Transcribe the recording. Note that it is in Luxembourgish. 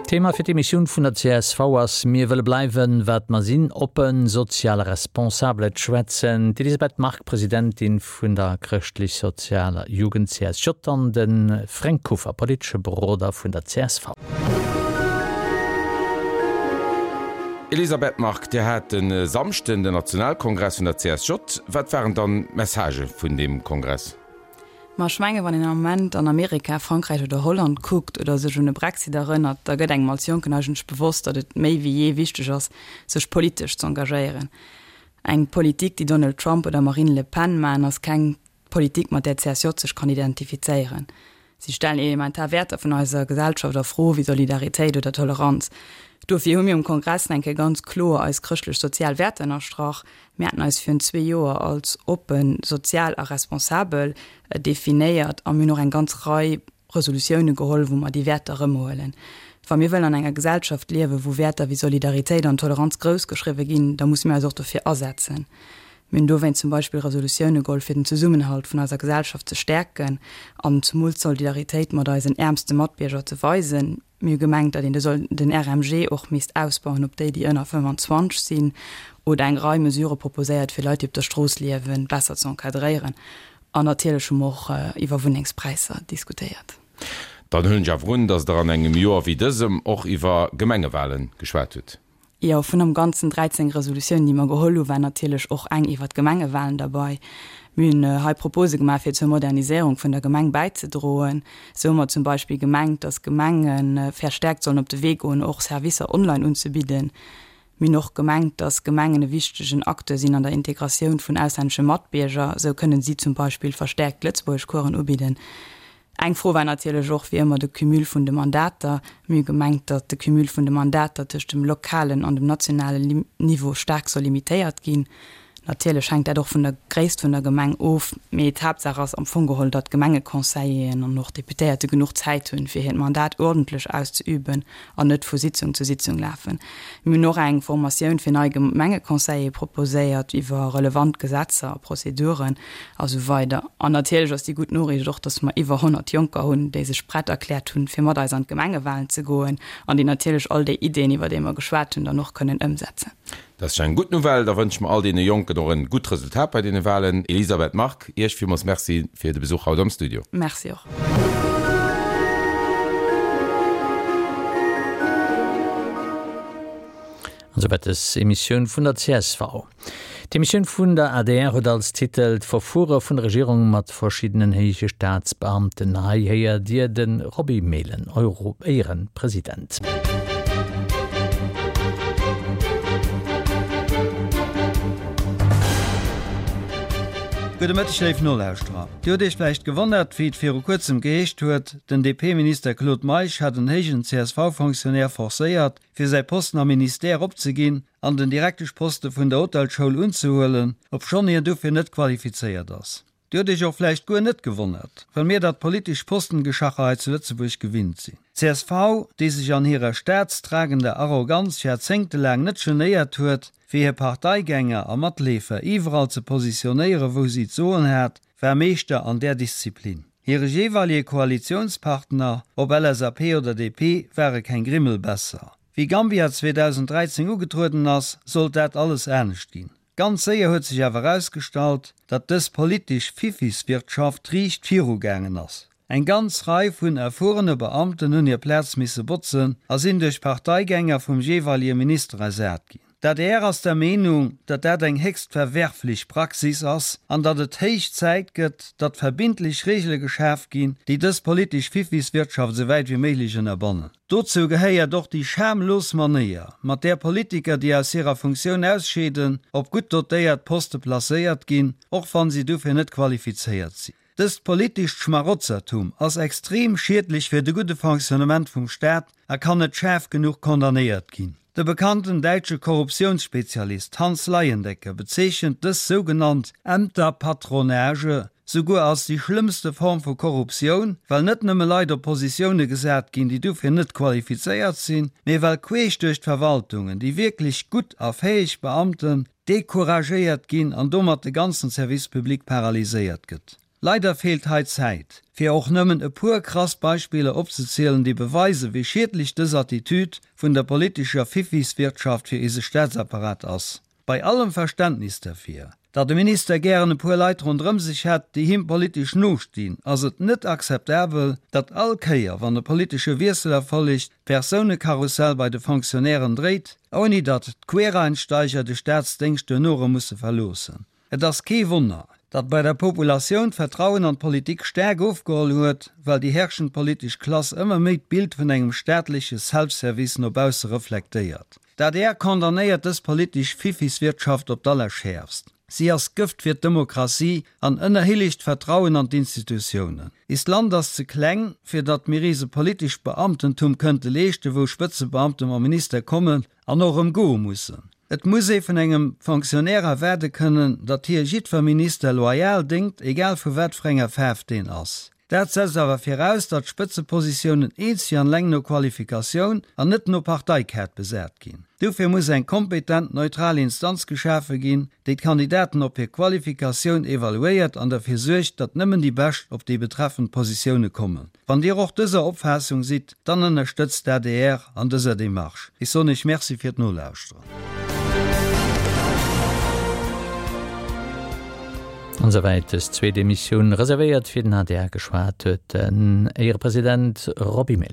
D'Thema fir d'Emissioun vun der csv ass Mir wëlle bleiwen, wat mer sinn, oppen, sozial a responsabel. Et schwätzen d'Elisabeth Margue, Presidentin vun der Chrëschtlech-Sozialer Jugend, CSJ, an de Fränk Kuffer, politesche Beroder vun der csv. Elisabeth Margue, Dir hat de Samschden den Nationalkongress vun der CSJ. Wat waren dann d'Messagë vun deem Kongress? Ma ech menge wann een am Moment an Amerika, Frankräich oder Holland kuckt oder sech un e Brexit erënnert, da gëtt engem als Jonken eigentlech bewosst, datt et méi wéi jee wichteg ass, sech politesch z'engagéieren. Eng Politik, déi Donald Trump oder Marine Le Pen maachen, ass keng Politik, mat där d'CSJ sech kann identifizéieren. Si stellen elementar Wäerter vun eiser Gesellschaft a Fro, wéi Solidaritéit oder Toleranz. Dofir hu mir um Kongress eng Kéier ganz kloer eis chrëschtlech-sozial Wäerter ënnerstrach. Mir haten eis virun zwee Joer als oppen, sozial a responsabel definéiert a mir hunn och eng ganz Rei Resolutioune geholl, wou mer déi Wäerter erëmhuelen. Wa mir wëllen an enger Gesellschaft liewen, wou Wäerter wéi Solidaritéit an Toleranz groussgeschriwwe ginn, da musse mir eis och dofir asetzen. Mir hunn dowéinst zum Beispill Resolutioune geholl, fir den Zesummenhalt vun eiser Gesellschaft ze stäerken an zemools d'Solidaritéit mat eisen äermste Matbierger ze weisen. Mir hu gemengt, datt een de soll den RMG och misst ausbauen op déi, déi ënner 25 sinn, oder eng Rei Mesurë proposéiert, fir Leit, déi op der Strooss liewen, besser ze encadréieren. An natierlech hu mer och iwwer Wunnengspräisser diskutéiert. Dann huelen ech awer un, datt Der an engem Joer wéi dësem och iwwer Gemengewahlen geschwat hutt. Jo, vun am Ganzen 13 Resolutiounen, déi mer geholl hunn, war natierlech och eng iwwert d'Gemengewahlen derbei. Mir hunn hei Propose gemaach, fir zur Moderniséierung vun der Gemeng bäizedroen. Esou hu mer zum Beispill gemengt, dass Gemenge verstärkt sollen op de Wee goen, och Servicer online unzebidden. Mir hunn och gemengt, dass Gemengen e wichtegen Acteur sinn an der Integratioun vun auslännesche Matbierger. Esou kënnen si zum Beispill verstärkt Lëtzebuergeschcoursen ubidden. Eng Fro war natierlech och wéi ëmmer de Cumul vun de Mandater. Mir hu gemengt, datt de Cumul vun de Mandater tëscht dem lokalen an dem nationalen Niveau staark soll limitéiert ginn. Natierlech hänkt dat och vun der Gréisst vun der Gemeng of, mee d'Haaptsaach ass am Fong geholl, datt d'Gemengeconseilleren an och d'Deputéierte genuch Zäit hunn, fir hiert Mandat uerdentlech auszeüben an net vu Sitzung zu Sitzung lafen. Mir hunn och eng Formatioun fir nei Gemengeconseillere proposéiert iwwer relevant Gesetzer a Prozeduren. A sou weider. An natierlech ass déi gutt Noriicht och, dass mer iwwer 100 Jonker hunn, déi sech prett erkläert hunn, fir mat eis an d'Gemengewahlen ze goen an déi natierlech all déi Ideen, iwwer déi mer geschwat hunn, dann och kënnen ëmsetzen. Dat ass eng gutt Nouvelle. Da wënsche mer all deene Jonken och en gutt Resultat bei deene Wahlen. Elisabeth Margue, Iech villmools Merci fir de Besuch haut am Studio. Merci och. An souwäit des Emissioun vun der csv. D'Emissioun vun der adr huet als Titel D'Verfuere vun der Regierung mat verschiddenen héije Staatsbeamten. Hei héiert Dir de Roby Mehlen, Euro-Éierepresident. Gudde Mëtteg léif Nolauschterer. Dir hutt Iech vläicht gewonnert, wéi et viru kuerzem geheescht huet, den DP-Minister Claude Meisch hätt en héijen CSV-Fonctionnaire forcéiert, fir säi Posten am Ministère opzeginn an den Direkteschposte vun der Hotelschoul unzehuelen, obschonn hien dofir net qualifizéiert ass. Dir hutt Iech och vläicht guer net gewonnert, well mir dat politesch Postengeschacher hei zu Lëtzebuerg gewinnt sinn. D'CSV, déi sech an hirer staatstragender Arroganz jarzéngtelaang net genéiert huet, fir hir Parteigänger a Matleefer iwwerall ze positionéieren, wou si d'Soen hat, war Meeschter an där Disziplin. Hire jeeweilige Koalitiounspartner, ob LSAP oder DP, ware keng Grimmel besser. Wéi Gambia 2013 ugetrueden ass, sollt dat alles anescht ginn. Ganz séier huet sech awer erausgestallt, datt dës politesch Fiffiswirtschaft riicht viru gaangen ass. Eng ganz Rei vun erfuerene Beamten hunn hir Plaz misse botzen a sinn duerch Parteigänger vum jeeweilige Minister ersat ginn. D'adr ass der Meenung, datt dat eng héchst verwerflech Praxis ass an datt et héich Zäit gëtt, datt verbindlech Reegele geschaf ginn, déi dës politesch Fiffiswirtschaft esou wäit wéi méiglech ënnerbannen. Dozou gehéiert och déi schamlos Manéier, mat där Politiker, déi aus hirer Funktioun ausscheeden, op gutt dotéiert Poste placéiert ginn, och wann si dofir net qualifizéiert sinn. Dëst politescht Schmarotzertum ass extrem schiedlech fir de gudde Fonctionnement vum Staat a kann net schaarf genuch condamnéiert ginn. De bekannten däitsche Korruptiounsspezialist Hans Leyendecker bezeechent dës sougenannt Ämterpatronage souguer als déi schlëmmste Form vu Korruptioun, well net nëmme Leit op Positioune gesat ginn, déi dofir net qualifizéiert sinn, mee well queesch duerch d'Verwaltungen déi wierklech gutt a fäeg Beamten decouragéiert ginn an domat de ganzen Service public paralyséiert gëtt. Leider feelt hei d'Zäit, fir och nëmmen e puer krass Beispiller opzezielen, déi beweisen, wéi schiedlech dës Attitüd vun der politescher Fiffiswirtschaft fir eise Staatsapparat ass. Bei allem Verständnis derfir, datt e Minister gären e puer Leit ronderëm sech hätt, déi him politesch nostinn, ass et net akzeptabel, datt all Kéier, wann e politesche Wiessel erfollegt, d'Persounekarussell bei de Fonctionnairen dréit, ouni datt d'Quereinsteiger de Staatsdéngscht duerno erëm musse verloossen. Et ass kee Wonner, datt bei der Populatioun d'Vertrauen an d'Politik staark ofgeholl huet, well déi herrschend politesch Klass ëmmer méi d'Bild vun engem staatleche Self-Service no bausse reflektéiert. D'adr condamnéiert dës politesch Fiffiswirtschaft op d'allerschäerfst. Si ass Gëft fir d'Demokratie an ënnerhillegt d'Vertrauen an d'Institutiounen. Eist Land ass ze kleng, fir datt mir eis e politescht Beamtentum kënnte leeschten, wou Spëtzebeamte mam Minister kommen an och erëm goe mussen. Et muss ee vun engem Fonctionnaire erwaarde kënnen, datt hie jiddwer Minister loyal déngt, egal vu wat fir enger Faarf deen ass. Dat setzt awer viraus, datt d'Spëtzepositiounen eenzeg an eleng no Qualifikatioun an net no Parteikaart besat ginn. Dofir muss eng kompetent, neutral Instanz geschafe ginn, déi d'Kandidaten op hir Qualifikatioun evaluéiert an derfir suergt, datt nëmmen déi Bescht op déi betreffend Positioune kommen. Wann Dir och dëser Opfaassung sidd, dann ënnerstëtzt d'ADR an dëser Démarche. Ech soen Iech Merci fir d'Nolauschteren. An esouwäit dës zweet Emissioun, reservéiert fir den adr. Geschwat huet den Éierepresident Roby Mehlen.